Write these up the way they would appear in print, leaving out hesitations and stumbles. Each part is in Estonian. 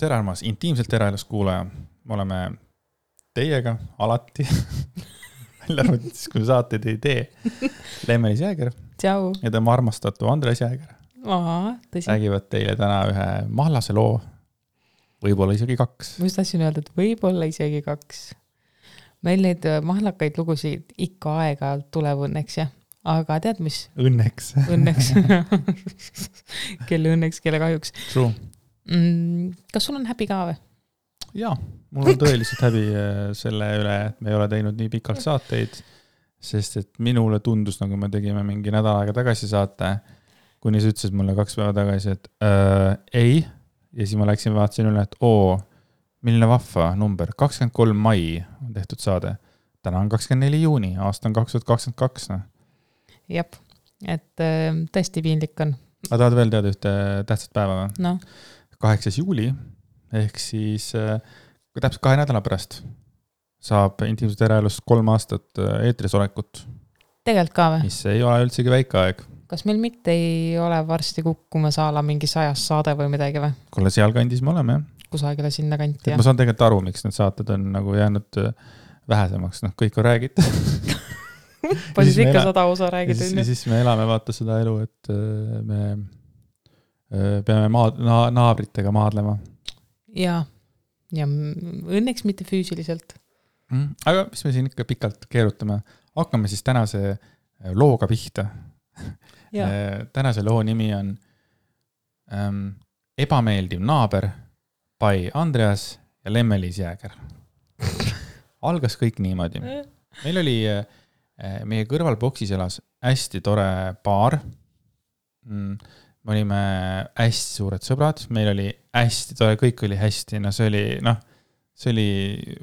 tere armas, intiimselt eraelus kuulaja. Me oleme teiega alati, välja arvatud siis, kui saateid ei tee. Lemmelis Jääger Tšau. ja tema armastatu Andres Jääger räägivad teile täna ühe mahlase loo, võib-olla isegi 2. Ma just tahtsin öelda, et võib-olla isegi 2. Meil neid mahlakaid lugusid ikka aeg-ajalt tuleb õnneks, jah. Aga tead mis? Õnneks. Õnneks. Kelle õnneks, kelle kahjuks. True. Kas sul on häbi ka või? Jaa, mul on tõeliselt häbi selle üle, et me ei ole teinud nii pikalt saateid, sest et minule tundus, nagu me tegime mingi nädal aega tagasi saate, kuni sa ütlesid mulle 2 päeva tagasi, et ei, ja siis ma läksin vaatasin üle, et milline vahva number, 23 mai on tehtud saade. Täna on 24 juuni, aasta on 2022. Jep, et tõesti piinlik on. Aga tahad veel teada ühte tähtsat päeva või? No. 8. juuli, ehk siis täpselt 2 nädala pärast saab intiimselt eraelust 3 aastat eetris olekut. Tegelikult ka või? Mis ei ole üldsegi väike aeg. Kas meil mitte ei ole varsti kukkumas ala mingi 100 saade või midagi või? Kuule, seal kandis me oleme, jah. Kusagile sinna kanti, ma saan tegelikult aru, miks need saated on nagu jäänud vähesemaks. Kõik on räägitud. Palju ikka 100 osa räägid. Siis me elame vaata seda elu, et me peame naabritega maadlema. Ja õnneks mitte füüsiliselt. Aga mis me siin ikka pikalt keerutame? Hakkame siis tänase looga pihta. Tänase loo nimi on Ebameeldiv naaber by Andreas ja Lemmelis Jääger. Algas kõik niimoodi. Meil oli meie kõrval boksis elas hästi tore paar. Me olime hästi suured sõbrad. Meil oli hästi tore, kõik oli hästi. No see oli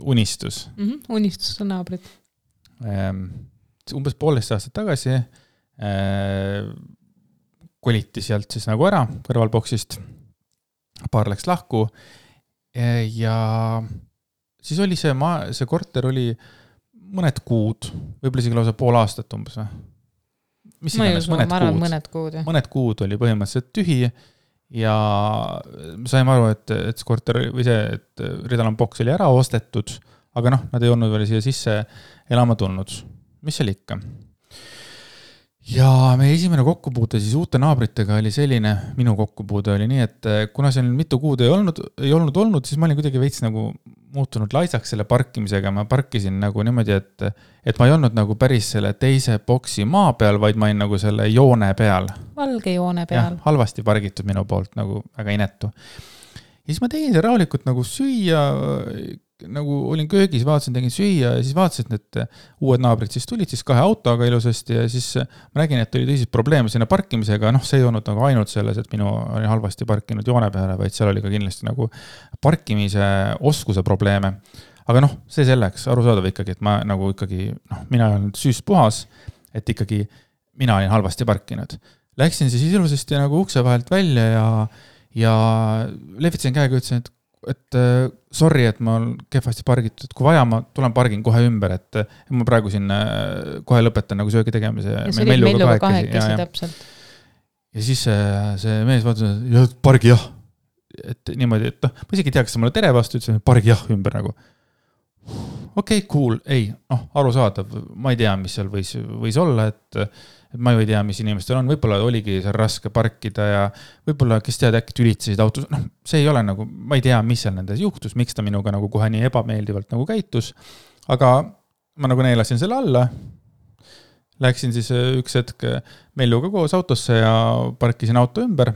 unistus. Unistus on naabrid. Umbes 1,5 aastat tagasi koliti sealt siis nagu ära kõrvalboksist. Paar läks lahku ja siis oli see korter oli mõned kuud, võib-olla isegi lausa 1,5 aastat umbes või? Mis iganes, mõned kuud oli põhimõtteliselt tühi ja saime aru, et see korter või see, et Ridalan boks oli ära ostetud, aga nad ei olnud veel siia sisse elama tulnud. Mis seal ikka? Ja meie esimene kokkupuute siis uute naabritega oli selline, minu kokkupuude oli nii, et kuna see mitu kuud ei olnud, siis ma olin kuidagi veits nagu muutunud laisaks selle parkimisega. Ma parkisin nagu niimoodi, et ma ei olnud nagu päris selle teise boksi maa peal, vaid ma olin nagu selle joone peal. Valge joone peal. Ja, halvasti pargitud minu poolt, nagu väga inetu. Ja siis ma tegin see rahulikult nagu süüa, nagu olin köögis, tegin süüa ja siis vaatasin, et uued naabrid siis tulid siis 2 autoga ilusasti ja siis ma nägin, et oli tõsiselt probleeme sinna parkimisega. See ei olnud nagu ainult selles, et minu oli halvasti parkinud joone peale, vaid seal oli ka kindlasti nagu parkimise oskuse probleeme. Aga see selleks, arusaadav ikkagi, et ma nagu ikkagi, mina olen süüst puhas, et ikkagi mina olin halvasti parkinud. Läksin siis ilusasti nagu ukse vahelt välja ja lehvitasin käega, ütlesin, et sorry, et ma olen kehvasti pargitud, kui vaja, ma tulen pargin kohe ümber, et ma praegu siin kohe lõpetan nagu söögi tegemise. Ja see oli Melluga kahekesi täpselt. Ja siis see mees vaatas, et pargi jah. Et niimoodi, et ma isegi tea, kas sa mulle tere vastu ütlesin, pargi jah ümber nagu. Okei, cool, ei, aru saadav, ma ei tea, mis seal võis olla, et ma ju ei tea, mis inimestel on, võib-olla oligi seal raske parkida ja võib-olla, kes tead, äkki tülitsesid autos, see ei ole nagu, ma ei tea, mis seal nendes juhtus, miks ta minuga nagu kohe nii ebameeldivalt nagu käitus, aga ma nagu neelasin selle alla, läksin siis üks hetk Melluga koos autosse ja parkisin auto ümber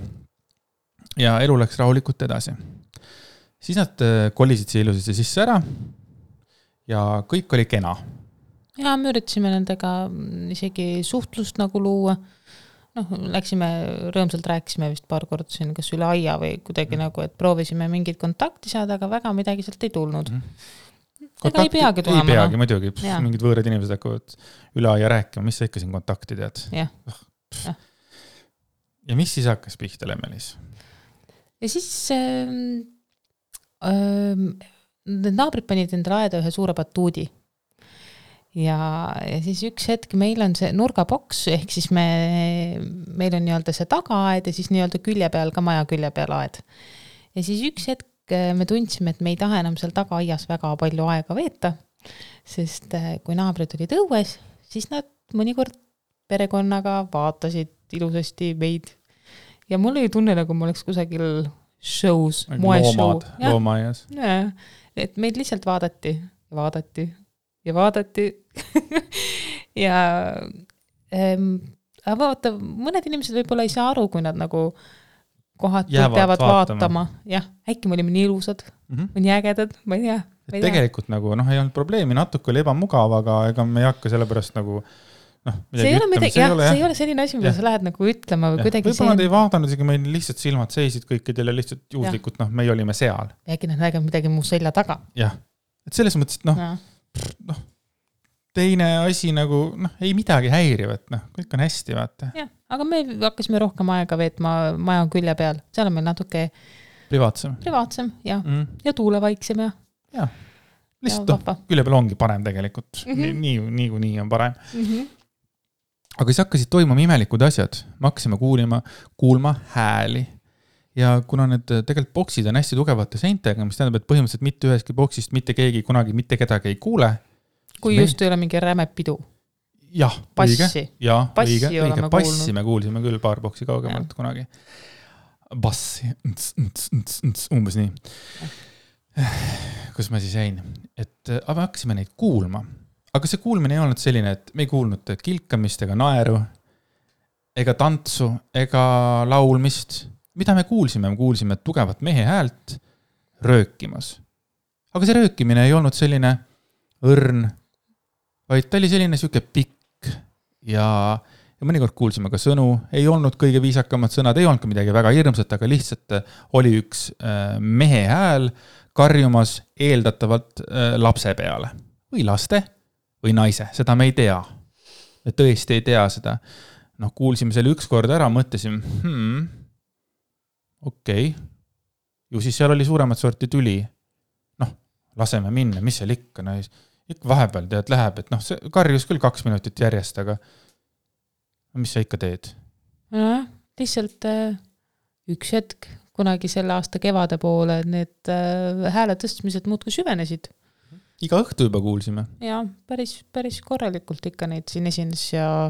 ja elu läks rahulikult edasi. Siis nad kolisid siia ilusasti sisse ära ja kõik oli kena. Ja me üritasime nendega isegi suhtlust nagu luua. Läksime, rõõmsalt rääkisime vist paar korda siin, kas üle aia või kuidagi nagu, et proovisime mingid kontakti saada, aga väga midagi sealt ei tulnud. Ega ei peagi tulema. Ei peagi, muidugi. Mingid võõrad inimesed hakkavad üle aia rääkima, mis sa ikka siin kontakti tead. Ja mis siis hakkas pihta Lemmelis? Ja siis need naabrid panid endale aeda ühe suure batuudi. Ja siis üks hetk meil on see nurgaboks, ehk siis meil on nii-öelda see tagaaed ja siis nii-öelda külje peal, ka maja külje peal aed. Ja siis üks hetk me tundsime, et me ei taha enam seal tagaaias väga palju aega veeta, sest kui naabrid olid õues, siis nad mõnikord perekonnaga vaatasid ilusasti meid. Ja mul oli tunne, nagu ma oleks kusagil shows, moeshow. Loomaias. Et meid lihtsalt vaadati ja vaadati ja vaadati. ja aga vaata, mõned inimesed võib-olla ei saa aru, kui nad nagu kohati peavad vaatama. Jah, äkki me olime nii ilusad, või nii ägedad, ma ei tea. Tegelikult nagu, ei olnud probleemi, natuke oli ebamugav, aga ega me ei hakka sellepärast nagu see ei ole selline asi, mida sa lähed nagu ütlema või kuidagi võib-olla nad ei vaadanud, isegi meil lihtsalt silmad seisid kõikidel ja lihtsalt juhuslikult, meie olime seal. Äkki nad näevad midagi mu selja taga. Jah, et selles mõttes, et teine asi nagu, ei midagi häirivat, kõik on hästi, vaata. Jah, aga me hakkasime rohkem aega veetma maja külje peal, seal on meil natuke privaatsem ja tuulevaiksem ja lihtsalt külje peal ongi parem tegelikult, nii on parem. Aga siis hakkasid toimuma imelikud asjad, me hakkasime kuulma hääli ja kuna need tegelikult boksid on hästi tugevate seintega, mis tähendab, et põhimõtteliselt mitte üheski boksist mitte keegi kunagi mitte kedagi ei kuule. Kui just ei ole mingi räme pidu. Jah, passi. õige. Passi me kuulsime küll paar boksi kaugemalt kunagi. Bassi, umbes nii. Kus ma siis jäin? Et aga hakkasime neid kuulma. Aga see kuulmine ei olnud selline, et me ei kuulnud kilkamist ega naeru, ega tantsu, ega laulmist. Mida me kuulsime? Me kuulsime tugevat mehe häält röökimas. Aga see röökimine ei olnud selline õrn, vaid ta oli selline siuke pikk ja mõnikord kuulsime ka sõnu, ei olnud kõige viisakamad sõnad, ei olnud ka midagi väga hirmsat, aga lihtsalt oli üks mehe hääl karjumas eeldatavalt lapse peale või laste või naise, seda me ei tea. Me tõesti ei tea seda. Kuulsime selle üks kord ära, mõtlesime, okei. Ju siis seal oli suuremat sorti tüli. Laseme minna, mis seal ikka? Ikka vahepeal tead läheb, et see karjus küll 2 minutit järjest, aga mis sa ikka teed? Lihtsalt üks hetk, kunagi selle aasta kevade poole, need hääle tõstmised muudkui süvenesid. Iga õhtu juba kuulsime. Ja, päris korralikult ikka neid siin esines ja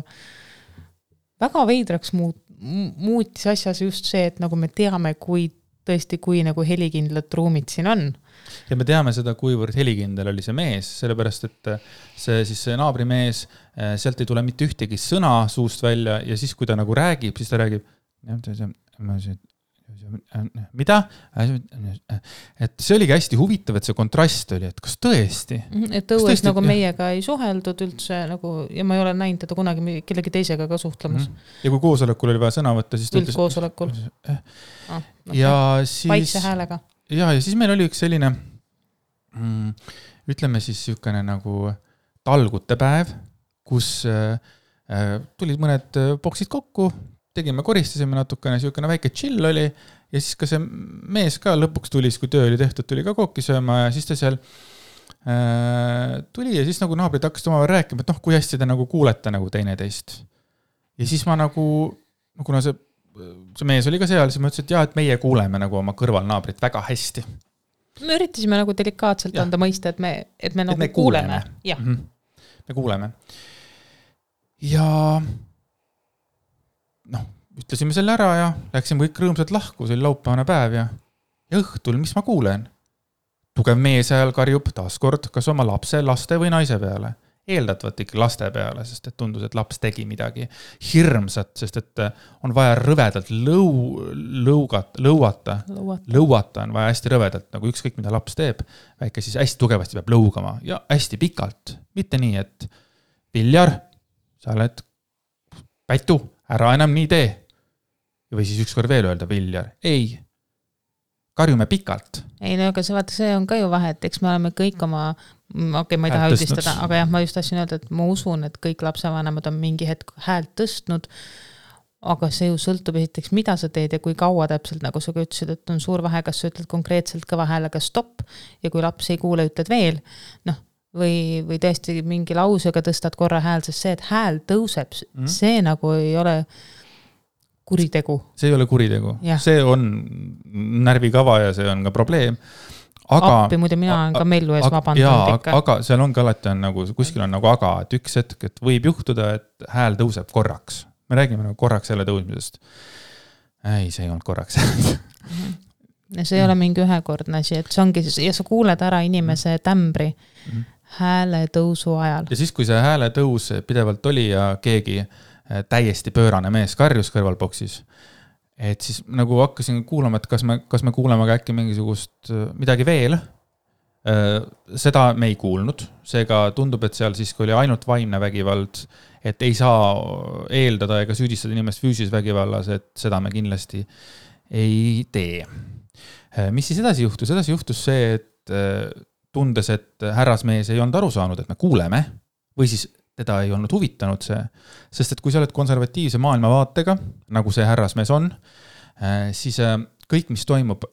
väga veidraks muutis asjas just see, et nagu me teame, kui nagu helikindlad ruumid siin on. Ja me teame seda, kuivõrd helikindel oli see mees, sellepärast, et see naabrimees, sealt ei tule mitte ühtegi sõna suust välja ja siis, kui ta nagu räägib, siis ta räägib mida? Et see oligi hästi huvitav, et see kontrast oli, et kas tõesti? Et õues nagu meiega ei suheldud üldse nagu, ja ma ei ole näinud teda kunagi kellegi teisega ka suhtlemas. Ja kui koosolekul oli vaja sõna võtta, siis üldkoosolekul. Ja siis vaikse häälega. Ja siis meil oli üks selline ütleme siis sükene nagu talgute päev, kus tulid mõned boksid kokku, tegime, koristasime natukene, sükene väike chill oli ja siis ka see mees ka lõpuks tuli, kui töö oli tehtud, tuli ka kokki sööma ja siis ta seal tuli ja siis nagu naabrid hakkasid omavahel rääkima, et kui hästi te nagu kuulete nagu teineteist. Ja siis ma nagu, kuna see mees oli ka seal, siis ma ütlesin, et et meie kuuleme nagu oma kõrvalnaabrit väga hästi. Me üritasime nagu delikaatselt anda mõista, et me nagu kuuleme. Ja. Me kuuleme. Ja ütlesime selle ära ja läksime kõik rõõmsalt lahku, see oli laupäevane päev ja õhtul, mis ma kuulen? Tugev mees ajal karjub taaskord kas oma lapse, laste või naise peale. Eeldatavalt ikka laste peale, sest et tundus, et laps tegi midagi hirmsat, sest et on vaja rõvedalt lõuata on vaja hästi rõvedalt, nagu ükskõik mida laps teeb, väike siis hästi tugevasti peab lõugama ja hästi pikalt, mitte nii, et Viljar, sa oled Pätu, ära enam nii tee. Või siis ükskord veel öelda Viljar, ei, karjume pikalt. Ei, no aga see on ka ju vahe, et eks me oleme kõik oma, ma ei taha üldistada, aga jah, ma just tahtsin öelda, et ma usun, et kõik lapsevanemad on mingi hetk häält tõstnud, aga see ju sõltub esiteks, mida sa teed ja kui kaua täpselt, nagu sa ka ütlesid, et on suur vahe, kas sa ütled konkreetselt kõva häälega stopp ja kui laps ei kuule, ütled veel, või tõesti mingi lausega tõstad korra hääl, sest see, et hääl tõuseb, see nagu ei ole kuritegu. See ei ole kuritegu. Ja. See on närvikava ja see on ka probleem. Aga, appi muide mina olen ka mellu ees vabandanud ikka. Aga seal ongi alati on nagu, kuskil on nagu aga, et üks hetk, et võib juhtuda, et hääl tõuseb korraks. Me räägime nagu korraks jälle tõusmisest. Ei, see ei olnud korraks. Ja see ei ole mingi ühekordne asi, et see ongi, ja sa kuuled ära inimese tämbri hääle tõusu ajal. Ja siis, kui see hääle tõus pidevalt oli ja keegi täiesti pöörane mees karjus kõrvalboksis, et siis nagu hakkasin kuulama, et kas me kuuleme ka äkki mingisugust midagi veel. Seda me ei kuulnud. Seega tundub, et seal siis, kui oli ainult vaimne vägivald, et ei saa eeldada ega süüdistada inimest füüsis vägivallas, et seda me kindlasti ei tee. Mis siis edasi juhtus? Edasi juhtus see, et tundes, et härrasmees ei olnud aru saanud, et me kuuleme, või siis teda ei olnud huvitanud see, sest et kui sa oled konservatiivse maailmavaatega, nagu see härrasmees on, siis kõik, mis toimub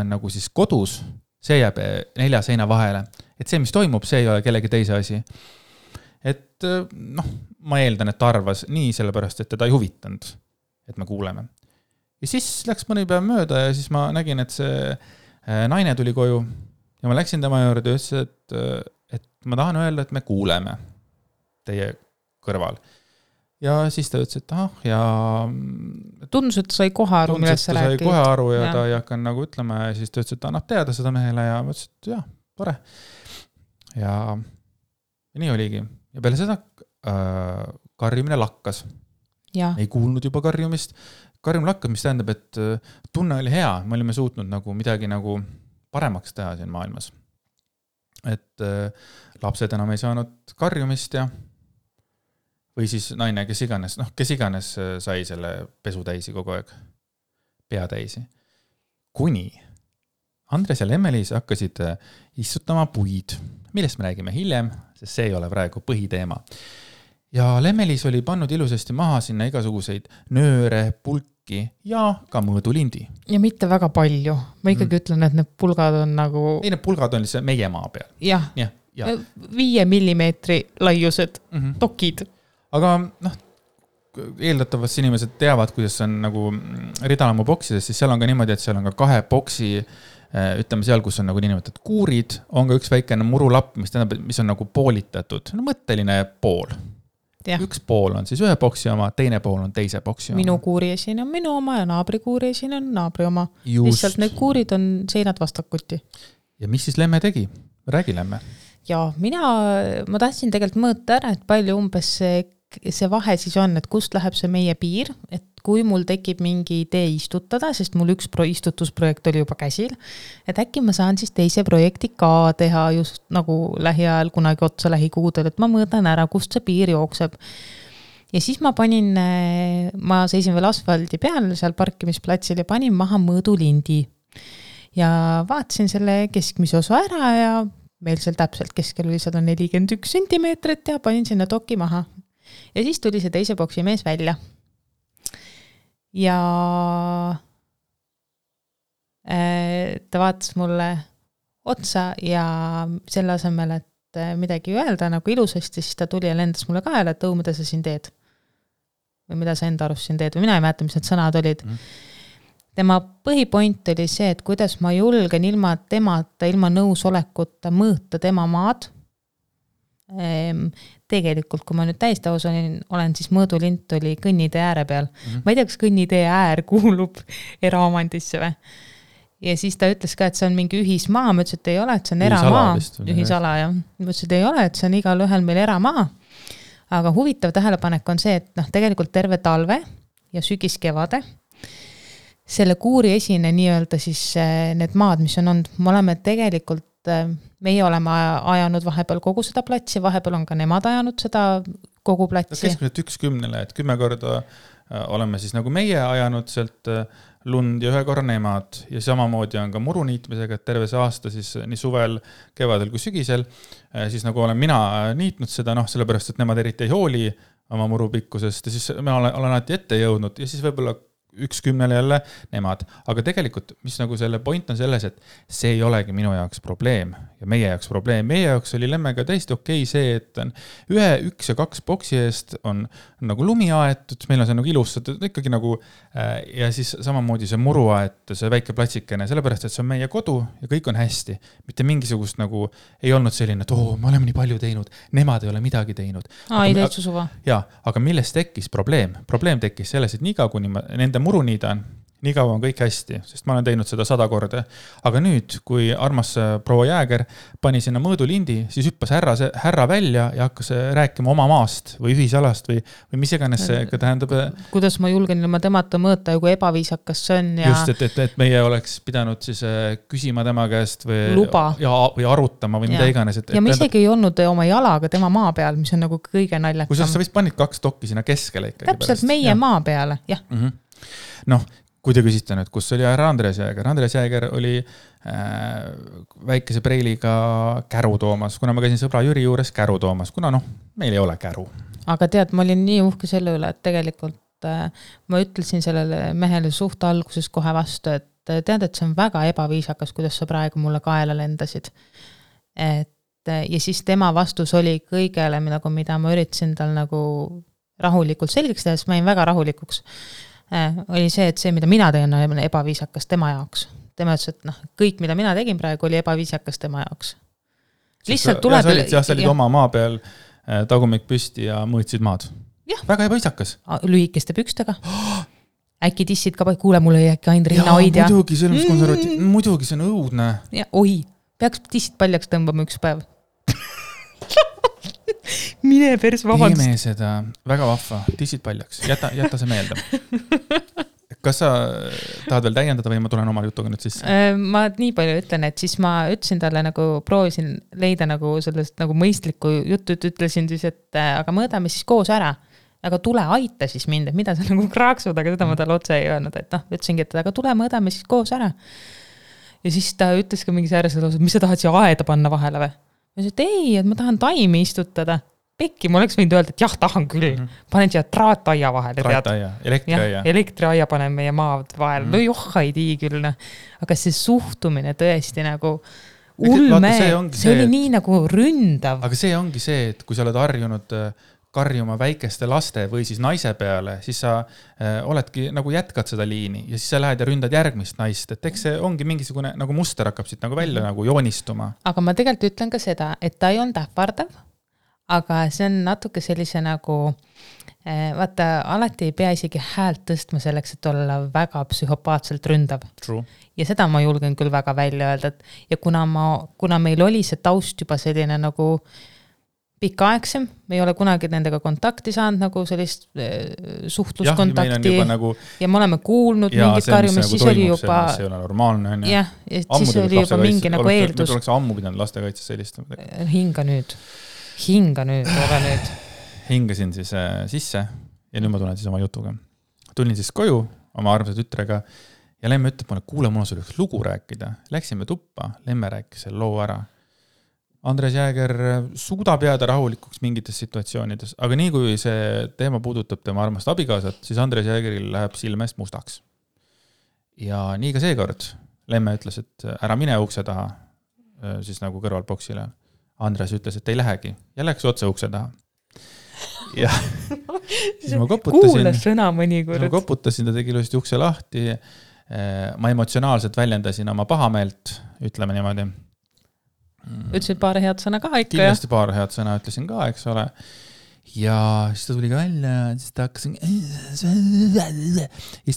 nagu siis kodus, see jääb 4 seina vahele. Et see, mis toimub, see ei ole kellegi teise asi. Et ma eeldan, et ta arvas nii sellepärast, et teda ei huvitanud, et me kuuleme. Ja siis läks mõni päev mööda ja siis ma nägin, et see naine tuli koju ja ma läksin tema juurde ja ütlesin, et ma tahan öelda, et me kuuleme teie kõrval. Ja siis ta ütles, et ja... Tundus, et sai kohe aru, millest sa rääkid. Tundus, et ta sai kohe aru ja ta ei hakanud nagu ütlema ja siis ta ütles, et ta annab teada seda mehele ja ma ütlesin, et jah, tore. Ja nii oligi. Ja peale seda karjumine lakkas. Ja. Ei kuulnud juba karjumist. Karjum lakkas, mis tähendab, et tunne oli hea. Me olime suutnud nagu midagi nagu paremaks teha siin maailmas. Et lapsed enam ei saanud karjumist ja või siis naine, kes iganes sai selle pesu täisi kogu aeg, pea täisi. Kuni Andres ja Lemmelis hakkasid istutama puid, millest me räägime hiljem, sest see ei ole praegu põhiteema. Ja Lemmelis oli pannud ilusasti maha sinna igasuguseid nööre, pulki ja ka mõõdulindi. Ja mitte väga palju. Ma ikkagi ütlen, et need pulgad on nagu... Ei, need pulgad on lihtsalt meie maa peal. Jah. 5 millimeetri laiused dokid. Aga eeldatavasti inimesed teavad, kuidas on nagu ridalamu boksides, siis seal on ka niimoodi, et seal on ka 2 boksi, ütleme seal, kus on nagu niimoodi kuurid, on ka üks väikene murulapp, mis on nagu poolitatud, mõtteline pool. Ja. Üks pool on siis ühe boksi oma, teine pool on teise boksi oma. Minu kuuriesin on minu oma ja naabri kuuriesin on naabri oma. Lihtsalt need kuurid on seinad vastakuti. Ja mis siis Lemme tegi? Räägi Lemme. Ja ma tahtsin tegelikult mõõta ära, et palju umbes see vahe siis on, et kust läheb see meie piir, et kui mul tekib mingi idee istutada, sest mul üks istutusprojekt oli juba käsil, et äkki ma saan siis teise projekti ka teha just nagu lähiajal kunagi otsa lähikuudel, et ma mõõdan ära, kust see piir jookseb. Ja siis ma seisin veel asfaldi peal seal parkimisplatsil ja panin maha mõõdulindi. Ja vaatasin selle keskmise osa ära ja meil seal täpselt keskel oli 141 sentimeetrit ja panin sinna doki maha. Ja siis tuli see teise boksi mees välja. Ja ta vaatas mulle otsa ja selle asemel, et midagi öelda nagu ilusasti, siis ta tuli ja lendas mulle kaela, et mida sa siin teed. Või mida sa enda arust siin teed. Või mina ei mäleta, mis need sõnad olid. Tema põhipoint oli see, et kuidas ma julgen ilma temata, ilma nõusolekuta mõõta tema maad. Tegelikult, kui ma nüüd täiesti aus olen siis mõõdulint oli kõnnitee ääre peal. Ma ei tea, kas kõnnitee äär kuulub eraomandisse või? Ja siis ta ütles ka, et see on mingi ühismaa. Ma ütles, et ei ole, et see on eramaa. Ühisala, jah. Ma ütles, et ei ole, et see on igal ühel meil eramaa. Aga huvitav tähelepanek on see, et tegelikult terve talve ja sügis-kevade selle kuuri esine nii-öelda siis need maad, mis on olnud, me oleme tegelikult, meie oleme ajanud vahepeal kogu seda platsi, vahepeal on ka nemad ajanud seda kogu platsi. Keskmiselt 1/10, et 10 korda oleme siis nagu meie ajanud sealt lund ja 1 korra nemad ja samamoodi on ka muruniitmisega, et terve see aasta siis nii suvel, kevadel kui sügisel, siis nagu olen mina niitnud seda, sellepärast, et nemad eriti ei hooli oma murupikkusest ja siis ma olen alati ette jõudnud ja siis võib-olla 1-10 jälle nemad. Aga tegelikult, mis nagu selle point on selles, et see ei olegi minu jaoks probleem ja meie jaoks probleem. Meie jaoks oli Lemmega täiesti okei see, et on 1 ja 2 boksi eest on nagu lumi aetud, meil on see nagu ilustatud ikkagi nagu ja siis samamoodi see muru aetud, see väike platsikene, sellepärast, et see on meie kodu ja kõik on hästi. Mitte mingisugust nagu ei olnud selline, et me oleme nii palju teinud, nemad ei ole midagi teinud. Ei täitsa suva. Jaa, aga millest tekkis probleem? Probleem tekkis selles, et niikaua kuni ma nende muru niidan, nii kaua on kõik hästi, sest ma olen teinud seda 100 korda. Aga nüüd, kui armas proua Jääger pani sinna mõõdulindi, siis hüppas härra välja ja hakkas rääkima oma maast või ühisalast või mis iganes see tähendab. Kuidas ma julgen ilma temata mõõta ja kui ebaviisakas see on. Ja... Just, et meie oleks pidanud siis küsima tema käest või arutama või mida iganes. Ja ma isegi ei olnud oma jalaga tema maa peal, mis on nagu kõige naljakam. Kui sa vist panid 2 dokki sinna keskele ikkagi. Täpselt meie maa peale, jah. Noh, kui te küsite nüüd, kus oli härra Andres Jääger? Andres Jääger oli väikese preiliga käru toomas, kuna ma käisin sõbra Jüri juures käru toomas, kuna meil ei ole käru. Aga tead, ma olin nii uhke selle üle, et tegelikult ma ütlesin sellele mehele suht alguses kohe vastu, et tead, et see on väga ebaviisakas, kuidas sa praegu mulle kaela lendasid. Ja siis tema vastus oli kõigele, mida ma üritasin tal nagu rahulikult selgeks teha, sest ma jäin väga rahulikuks. Oli see, et see, mida mina teen, on ebaviisakas tema jaoks. Tema ütles, et kõik, mida mina tegin praegu, oli ebaviisakas tema jaoks. Lihtsalt tuleb... Sa olid oma maa peal tagumik püsti ja mõõtsid maad. Ja. Väga ebaviisakas. Lühikeste pükstega. Äkki tissid ka, kuule, mulle ei äkki ainult rinna hoidja. Muidugi, see on konservatiiv. Muidugi, see on õudne. Ja, peaks tissid paljaks tõmbama üks päev. Mine pers, vabandust. Teeme seda väga vahva, tissid paljaks, jäta see meelde. Kas sa tahad veel täiendada või ma tulen oma jutuga nüüd sisse? Ma nii palju ütlen, et siis ma ütlesin talle nagu, proovisin leida nagu sellest nagu mõistlikku juttu, ütlesin siis, et aga mõõdame siis koos ära. Aga tule aita siis mind, et mida sa nagu kraaksud, aga seda ma talle otse ei öelnud, et ütlesingi, et aga tule mõõdame siis koos ära. Ja siis ta ütles ka mingi säärasel osas, mis sa tahad siia aeda panna vahele või? Ma ütlesin, et ei, et ma tahan taimi istutada. Pekki, ma oleks võinud öelda, et jah, tahan küll. Panen siia traataia vahele. Traataia, elektriaia. Elektriaia panen meie maad vahele. No ei tii küll. Aga see suhtumine tõesti nagu ulme, see oli nii nagu ründav. Aga see ongi see, et kui sa oled harjunud karjuma väikeste laste või siis naise peale, siis sa oledki nagu jätkad seda liini ja siis sa lähed ja ründad järgmist naist. Et eks see ongi mingisugune nagu muster hakkab siit nagu välja nagu joonistuma. Aga ma tegelikult ütlen ka seda, et ta ei olnud ähvardav, aga see on natuke sellise nagu, vaata, alati ei pea isegi häält tõstma selleks, et olla väga psühhopaatselt ründav. True. Ja seda ma julgen küll väga välja öelda. Ja kuna meil oli see taust juba selline nagu pikaaegsem, me ei ole kunagi nendega kontakti saanud, nagu sellist suhtluskontakti ja me oleme kuulnud mingit karjumist, siis oli juba... See ei ole normaalne. Ja siis oli juba mingi nagu eeldus. Me tuleks ammu pidanud lastekaitses sellist. Hinga nüüd, ole nüüd. Hingasin siis sisse ja nüüd ma tulen siis oma jutuga. Tulin siis koju oma armsa tütrega ja Lemme ütleb mulle, kuule, mul on sul üks lugu rääkida. Läksime tuppa, Lemme rääkis selle loo ära. Andres Jääger suudab jääda rahulikuks mingites situatsioonides, aga nii kui see teema puudutab tema armast abikaasat, siis Andres Jäägeril läheb silmest mustaks. Ja nii ka seekord Lemme ütles, et ära mine ukse taha, siis nagu kõrvalboksile. Andres ütles, et ei lähegi ja läks otse ukse taha. Ja siis ma koputasin. Kuule sõna mõnikord. Ma koputasin, ta tegi ilusti ukse lahti. Ma emotsionaalselt väljendasin oma pahameelt, ütleme niimoodi. Ütlesid paar head sõna ka ikka. Kindlasti paar head sõna ütlesin ka, eks ole. Ja siis ta tuli ka välja, siis ta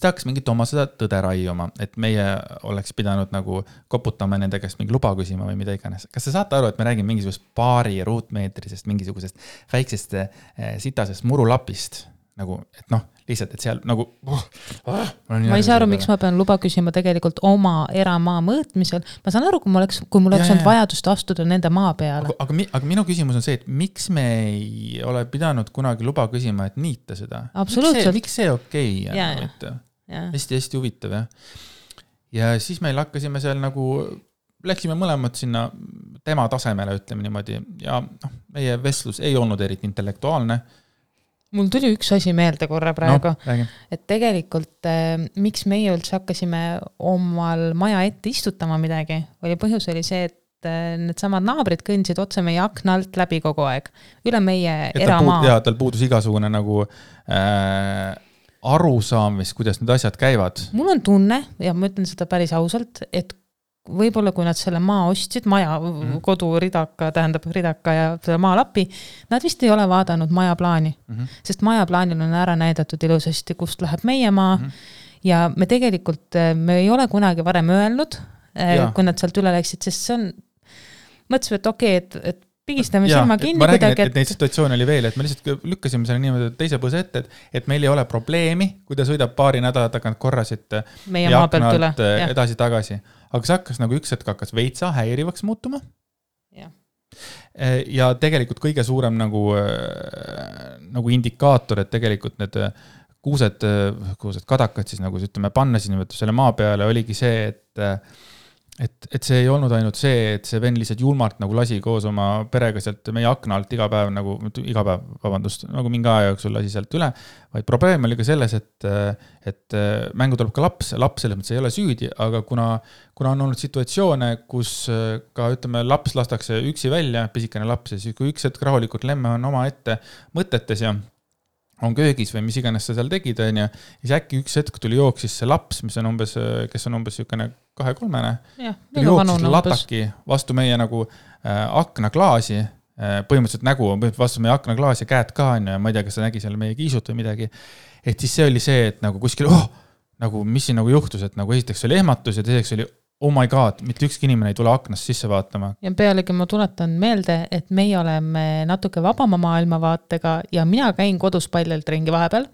hakkas mingit oma seda tõde raiuma, et meie oleks pidanud nagu koputama nende käest mingi luba küsima või mida iganes. Kas sa saate aru, et me räägime mingisugust paari ruutmeetrisest, mingisugusest väiksest sitasest murulapist? Nagu, et lihtsalt, et seal nagu... Ma ei saa aru, miks ma pean luba küsima tegelikult oma eramaa mõõtmisel. Ma saan aru, kui mul oleks olnud vajadust astuda nende maa peale. Aga minu küsimus on see, et miks me ei ole pidanud kunagi luba küsima, et niita seda? Absoluutselt. Miks see okei? Hästi huvitav, ja siis meil hakkasime seal nagu... Läksime mõlemad sinna tema tasemele, ütleme niimoodi, ja meie vestlus ei olnud eriti intellektuaalne. Mul tuli üks asi meelde korra praegu, No, et tegelikult miks meie üldse hakkasime omal maja ette istutama midagi, põhjus oli see, et need samad naabrid kõndsid otse meie akna alt läbi kogu aeg, üle meie eramaa. Ja tal puudus igasugune nagu arusaam, kuidas need asjad käivad. Mul on tunne, ja ma ütlen seda päris ausalt, et võib-olla kui nad selle maa ostsid, maja, kodu ridaka, tähendab ridaka ja selle maalapi, nad vist ei ole vaadanud maja plaani, sest maja plaanil on ära näidatud ilusasti, kust läheb meie maa ja me tegelikult, me ei ole kunagi varem öelnud, kui nad sealt üle läksid, sest see on, mõtlesin, et okei, et pigistame silma kinni. Ma räägin, et neid situatsioone oli veel, et me lihtsalt lükkasime selle niimoodi teise põse ette, et meil ei ole probleemi, kui ta sõidab paari nädala tagant korrasid meie maa pealt üle edasi-tagasi. Aga see hakkas nagu üks hetk hakkas veitsa häirivaks muutuma. Ja tegelikult kõige suurem nagu indikaator, et tegelikult need kuused kadakad siis nagu ütleme panna siin selle maa peale oligi see, et see ei olnud ainult see, et see vend lihtsalt julmalt nagu lasi koos oma perega sealt meie akna alt iga päev, nagu mingi aja jooksul lasi sealt üle, vaid probleem oli ka selles, et mängu tuleb ka laps selles mõttes ei ole süüdi, aga kuna on olnud situatsioone, kus ka ütleme laps lastakse üksi välja, pisikene laps, ja siis kui üks hetk rahulikult lemme on oma ette mõtetes ja on köögis või mis iganes sa seal tegid, ja siis äkki üks hetk tuli jooksis see laps, kes on umbes sükene 2-3-ne, jooksis lataki vastu meie nagu aknaklaasi, põhimõtteliselt nägu on vastu meie aknaklaasi ja käed ka, ja ma ei tea, kas ta nägi seal meie kiisut või midagi, et siis see oli see, et nagu kuskil, nagu mis siin nagu juhtus, et nagu esiteks oli ehmatus ja teiseks oli oh my god, mitte ükski inimene ei tule aknast sisse vaatama. Ja pealegi ma tuletan meelde, et meie oleme natuke vabama maailmavaatega ja mina käin kodus paljalt ringi vahepeal.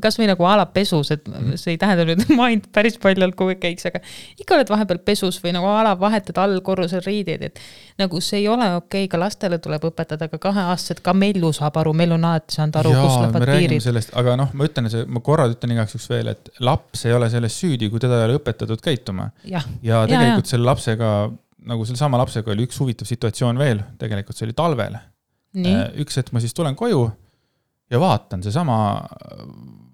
Kas või nagu ala pesus, et see ei tähenda nüüd, et ma ainult päris paljalt kui käiks, aga ikka oled vahepeal pesus või nagu ala vahetad all korrusel riideid, et nagu see ei ole okei, ka lastele tuleb õpetada, aga 2-aastased, ka Mellu saab aru, Mellu on alati saanud aru, kus lähevad piirid. Aga ma ütlen igaks üks veel, et laps ei ole selles süüdi, kui teda ei ole õpetatud käituma. Ja tegelikult selle lapsega, nagu selle sama lapsega oli üks huvitav situatsioon veel, tegelikult see oli talvel. Üks hetk ma siis tulen koju ja vaatan, see sama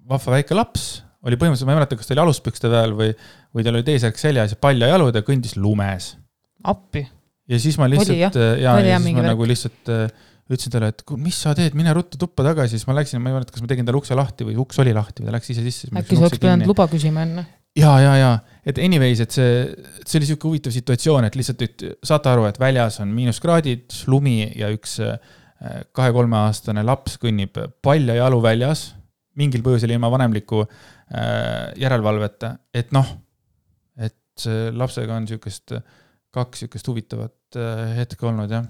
vahva väike laps oli põhimõtteliselt, ma ei mäleta, kas ta oli aluspükste peal või tal oli teisärk seljas ja palja jalud ja kõndis lumes. Appi. Ja siis ma lihtsalt, nagu lihtsalt ütlesin talle, et mis sa teed, mine ruttu tuppa tagasi, siis ma läksin, ma ei mäleta, kas ma tegin talle ukse lahti või uks oli lahti või ta läks ise sisse. Äkki sa oleks pidanud luba küsima enne? Ja, et anyways, et see oli selline huvitav situatsioon, et lihtsalt saate aru, et väljas on miinuskraadid, lumi ja üks 2-3 aastane laps kõnnib palja jalu väljas, mingil põhjusel ilma vanemliku järelevalveta, et et lapsega on kaks huvitavat hetke olnud, jah.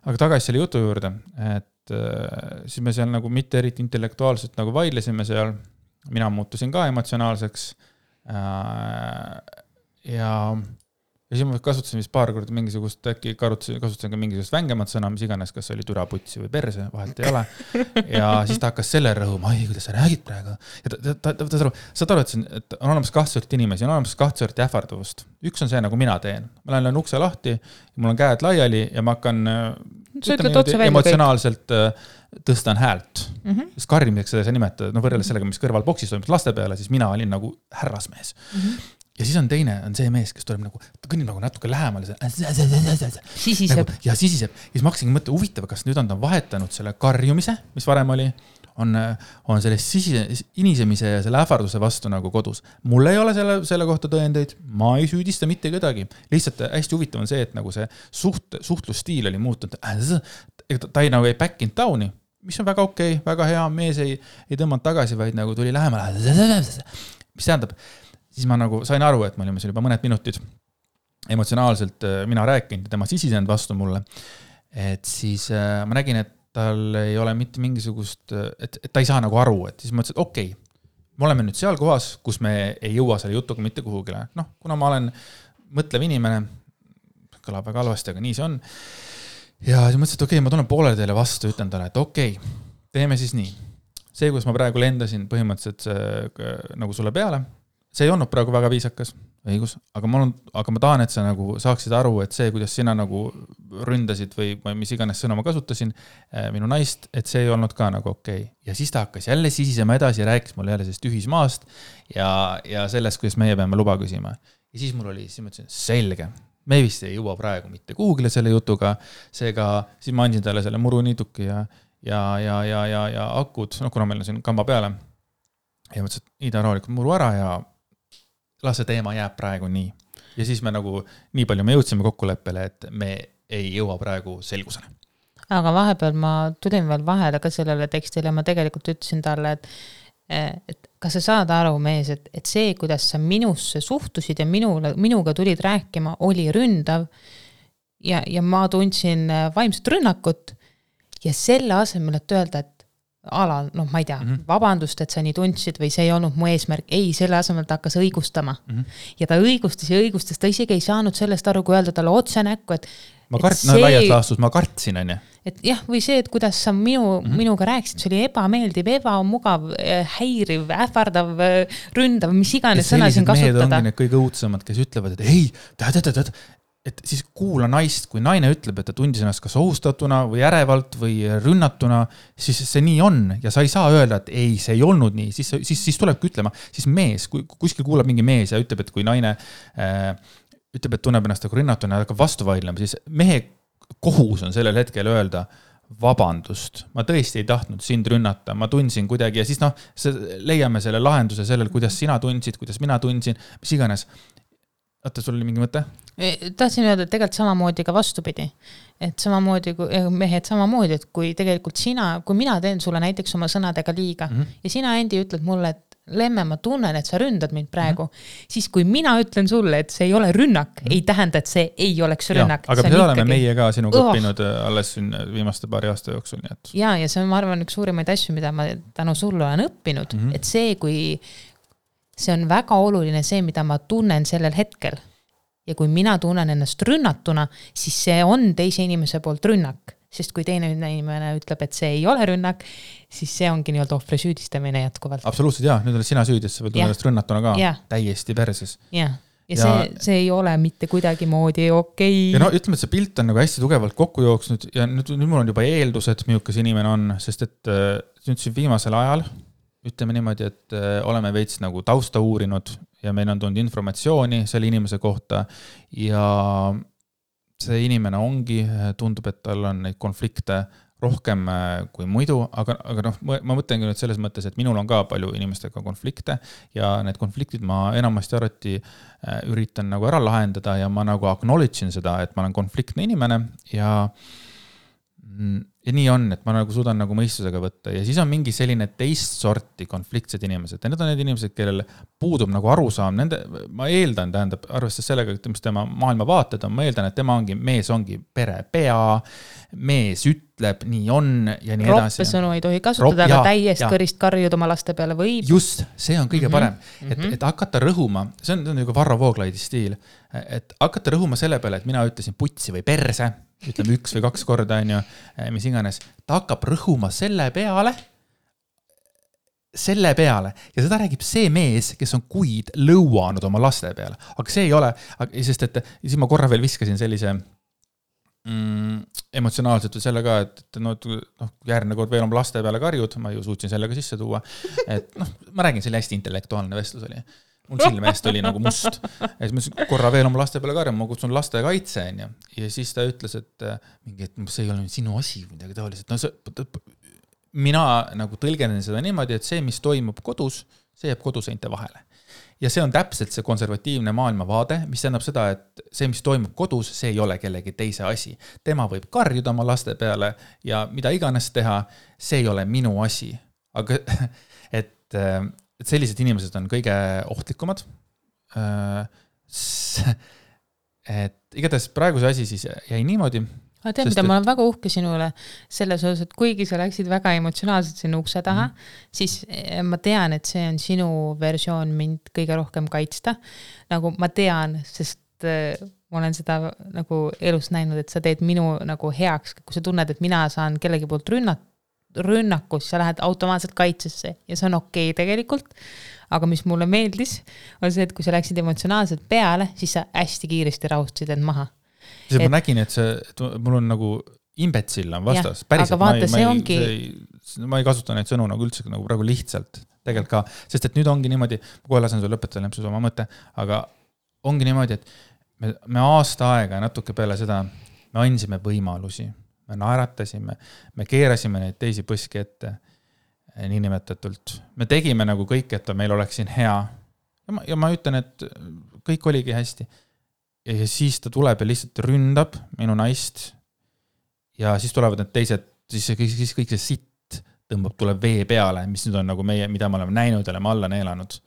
Aga tagasi selle jutu juurde, et siis me seal nagu mitte eriti intellektuaalselt nagu vaidlesime seal, mina muutusin ka emotsionaalseks ja siis ma kasutasin vist paar korda mingisugust, äkki kasutasin ka mingisugust vängemat sõna, mis iganes, kas oli türaputsi või perse, vahelt ei ole. Ja siis ta hakkas selle rõhuma, kuidas sa räägid praegu. Ja saad aru, et on olemas 2 sorti inimesi, on olemas 2 sorti ähvarduvust. Üks on see, nagu mina teen. Ma lähen ukse lahti, mul on käed laiali ja ma hakkan emotsionaalselt tõstan häält. Sest karjumiseks seda sa nimetad, võrreldes sellega, mis kõrval boksis toimub laste peale, siis mina olin nagu härrasmees. Ja siis on teine, on see mees, kes tuleb nagu, ta kõnnib nagu natuke lähemale. Sisiseb. Ja sisiseb. Ja siis ma hakkasingi mõtte huvitav, kas nüüd on ta vahetanud selle karjumise, mis varem oli, on selle inisemise ja selle ähvarduse vastu nagu kodus. Mul ei ole selle kohta tõendeid, ma ei süüdista mitte kedagi. Lihtsalt hästi huvitav on see, et nagu see suhtlusstiil oli muutunud. Ta ei nagu ei back in downi, mis on väga okei, väga hea, mees ei tõmmanud tagasi, vaid nagu tuli lähemale. Mis tähendab, siis ma nagu sain aru, et me olime seal juba mõned minutid emotsionaalselt mina rääkinud ja tema sisisend vastu mulle. Et siis ma nägin, et tal ei ole mitte mingisugust, et ta ei saa nagu aru, et siis ma ütlesin, et okei, me oleme nüüd seal kohas, kus me ei jõua selle jutuga mitte kuhugile. Kuna ma olen mõtlev inimene, kõlab väga halvasti, aga nii see on. Ja siis mõtlesin, et okei, ma tulen poolele teile vastu, ütlen talle, et okei, teeme siis nii. See, kus ma praegu lendasin põhimõtteliselt nagu sulle peale, see ei olnud praegu väga viisakas. õigus, aga ma tahan, et sa nagu saaksid aru, et see, kuidas sina nagu ründasid või mis iganes sõna ma kasutasin minu naist, et see ei olnud ka nagu okei. Ja siis ta hakkas jälle sisisema edasi ja rääkis mulle jälle sellest ühismaast ja sellest, kuidas meie peame luba küsima. Ja siis mul oli, siis ma ütlesin, selge, me vist ei jõua praegu mitte kuhugile selle jutuga, seega siis ma andsin talle selle muruniituki ja akud, kuna meil on siin kamba peale ja mõtlesin, et Ida rahulikult muru ära ja las see teema jääb praegu nii. Ja siis me nagu nii palju me jõudsime kokkuleppele, et me ei jõua praegu selgusele. Aga vahepeal ma tulin veel vahele ka sellele tekstile ja ma tegelikult ütlesin talle, et kas sa saad aru, mees, et see, kuidas sa minusse suhtusid ja minuga tulid rääkima, oli ründav ja ma tundsin vaimset rünnakut ja selle asemel, et öelda, et ma ei tea, vabandust, et sa nii tundsid või see ei olnud mu eesmärk. Ei, selle asemel ta hakkas õigustama. Ja ta õigustas, ta isegi ei saanud sellest aru, kui öelda talle otse näkku, et laias laastus ma kartsin, on ju. Et jah, või see, et kuidas sa minuga rääkisid, see oli ebameeldiv, ebamugav, häiriv, ähvardav, ründav, mis iganes sõna siin kasutada. Mehed ongi need kõige õudsemad, kes ütlevad, et ei, et siis kuula naist, kui naine ütleb, et ta tundis ennast kas ohustatuna või ärevalt või rünnatuna, siis see nii on ja sa ei saa öelda, et ei, see ei olnud nii, siis tulebki ütlema, siis mees, kui kuskil kuulab mingi mees ja ütleb, et kui naine ütleb, et tunneb ennast nagu rünnatuna ja hakkab vastu vaidlema, siis mehe kohus on sellel hetkel öelda vabandust, ma tõesti ei tahtnud sind rünnata, ma tundsin kuidagi ja siis leiame selle lahenduse sellel, kuidas sina tundsid, kuidas mina tundsin, mis iganes. Oota, sul oli mingi mõte? Tahtsin öelda, et tegelikult samamoodi ka vastupidi. Et samamoodi, mehed samamoodi, et kui tegelikult kui mina teen sulle näiteks oma sõnadega liiga ja sina endi ütled mulle, et Lemme, ma tunnen, et sa ründad mind praegu, siis kui mina ütlen sulle, et see ei ole rünnak, ei tähenda, et see ei oleks rünnak. Ja, aga seda oleme meie ka sinuga õppinud alles viimaste paari aasta jooksul. Nii et... Ja see on, ma arvan, üks suurimaid asju, mida ma tänu sulle olen õppinud, et see on väga oluline see, mida ma tunnen sellel hetkel. Ja kui mina tunnen ennast rünnatuna, siis see on teise inimese poolt rünnak. Sest kui teine inimene ütleb, et see ei ole rünnak, siis see ongi nii-öelda ohvri süüdistamine jätkuvalt. Absoluutselt, jah. Nüüd oled sina süüdi, et sa võid ennast rünnatuna ka täiesti perses. Ja see ei ole mitte kuidagi moodi okei. Ja no ütleme, et see pilt on nagu hästi tugevalt kokku jooksnud ja nüüd mul on juba eeldused, milline inimene on, sest et nüüd siin viimasel ajal ütleme niimoodi, et oleme veits nagu tausta uurinud ja meil on tulnud informatsiooni selle inimese kohta ja see inimene ongi, tundub, et tal on neid konflikte rohkem kui muidu, aga ma mõtlengi nüüd selles mõttes, et minul on ka palju inimestega konflikte ja need konfliktid ma enamasti arvati üritan nagu ära lahendada ja ma nagu acknowledge'in seda, et ma olen konfliktne inimene ja nii on, et ma nagu suudan nagu mõistusega võtta ja siis on mingi selline teist sorti konfliktsed inimesed ja need on need inimesed, kellel puudub nagu arusaam, ma eeldan, tähendab, arvestades sellega, mis tema maailmavaated on, ma eeldan, et tema mees ongi pere pea, mees ütleb, nii on ja nii edasi. Roppe sõnu ei tohi kasutada, aga täiest kõrist karjud oma laste peale võib. Just, see on kõige parem, et hakata rõhuma, see on nagu Varro Vooglaidi stiil, et hakata rõhuma selle peale, et mina ütlesin putsi või perse, ütleme 1 või 2 korda, on ju, mis iganes, ta hakkab rõhuma selle peale ja seda räägib see mees, kes on kuid lõuanud oma laste peale, aga see ei ole, sest et siis ma korra veel viskasin sellise emotsionaalselt selle ka, et järgmine kord veel oma laste peale karjud, ma ju suutsin sellega sisse tuua, et ma räägin, see oli hästi intellektuaalne vestlus oli. Mul silmeest oli nagu must. Ja siis ma korra veel oma laste peale karjama, ma kutsun laste kaitse. Ja siis ta ütles, et see ei ole sinu asi midagi taoliselt. Mina nagu tõlgenen seda niimoodi, et see, mis toimub kodus, see jääb koduseinte vahele. Ja see on täpselt see konservatiivne maailmavaade, mis tähendab seda, et see, mis toimub kodus, see ei ole kellegi teise asi. Tema võib karjuda oma laste peale ja mida iganes teha, see ei ole minu asi. Aga et sellised inimesed on kõige ohtlikumad. Et igatahes praeguse asi siis jäi niimoodi. Tead, mida ma olen väga uhke sinule selles osas, et kuigi sa läksid väga emotsionaalselt sinna ukse taha, siis ma tean, et see on sinu versioon mind kõige rohkem kaitsta. Nagu ma tean, sest ma olen seda nagu elus näinud, et sa teed minu nagu heaks, kui sa tunned, et mina saan kellegi poolt rünnakus, sa lähed automaatselt kaitsesse ja see on okei tegelikult, aga mis mulle meeldis, on see, et kui sa läksid emotsionaalselt peale, siis sa hästi kiiresti rahustasid end maha. Ma nägin, et mul on nagu imbetsill on vastas, päriselt, ma ei kasuta neid sõnu nagu üldse nagu praegu lihtsalt, tegelikult ka, sest et nüüd ongi niimoodi, ma kohe lasen sul lõpetada lempsus oma mõte, aga ongi niimoodi, et me aasta aega natuke peale seda, me andsime võimalusi, me naeratasime, me keerasime neid teisi põski ette, niinimetatult. Me tegime nagu kõik, et meil oleks siin hea. Ja ma ütlen, et kõik oligi hästi. Ja siis ta tuleb ja lihtsalt ründab minu naist ja siis tulevad need teised, siis kõik see sitt tuleb vee peale, mis nüüd on nagu meie, mida me oleme näinud ja oleme alla neelanud.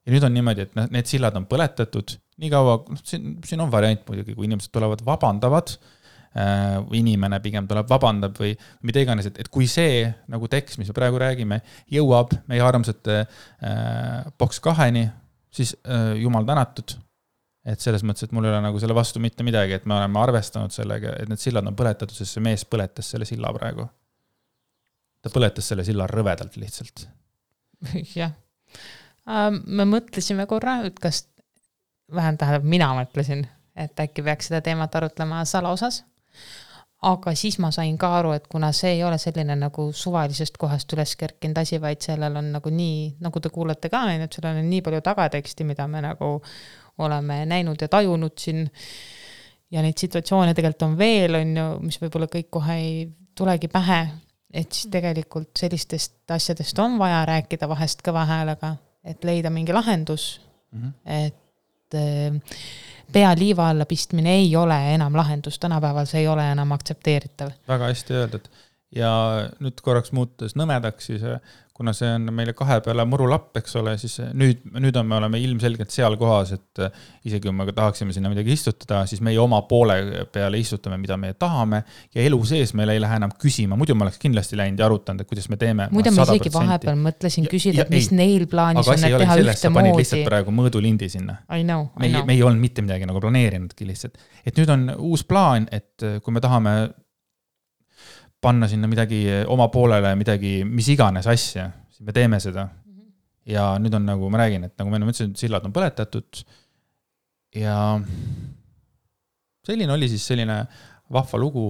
Ja nüüd on niimoodi, et need sillad on põletatud, nii kaua, siin on variant muidugi, kui inimesed tulevad vabandavad, inimene pigem tuleb vabandab või mida iganes, et kui see nagu tekst, mis me praegu räägime, jõuab meie armsate boks 2-ni, siis jumal tänatud, et selles mõttes, et mul ei ole nagu selle vastu mitte midagi, et me oleme arvestanud sellega, et need sillad on põletatud, sest see mees põletas selle silla praegu. Ta põletas selle silla rõvedalt lihtsalt. Jah. Me mõtlesime korra, et kas vähem tähendab, mina mõtlesin, et äkki peaks seda teemat arutlema salaosas. Aga siis ma sain ka aru, et kuna see ei ole selline nagu suvalisest kohast üles kerkinud asi, vaid sellel on nagu nii, nagu te kuulete ka, et sellel on nii palju tagateksti, mida me nagu oleme näinud ja tajunud siin ja neid situatsioone tegelikult on veel, mis võib-olla kõik kohe ei tulegi pähe, et siis tegelikult sellistest asjadest on vaja rääkida vahest kõva häälega, et leida mingi lahendus, et pea liiva alla pistmine ei ole enam lahendus, tänapäeval see ei ole enam aktsepteeritav. Väga hästi öeldud. Ja nüüd korraks muutus nõmedaks, siis kuna see on meile 2 peale murulapp, eks ole, siis nüüd me oleme ilmselgelt seal kohas, et isegi kui me tahaksime sinna midagi istutada, siis meie oma poole peale istutame, mida me tahame ja elu sees meil ei lähe enam küsima. Muidu ma oleks kindlasti läinud ja arutanud, et kuidas me teeme. Muidu ma isegi vahepeal mõtlesin küsida, et mis neil plaanis on, et teha ühte moodi. Panin lihtsalt praegu mõõdulindi sinna. Me ei olnud mitte midagi nagu planeerinudki lihtsalt. Et nüüd on uus plaan, et kui me tahame panna sinna midagi oma poolele, midagi, mis iganes asja, siis me teeme seda. Ja nüüd on nagu, ma räägin, et nagu me mõtlesin, sillad on põletatud ja selline oli siis selline vahva lugu,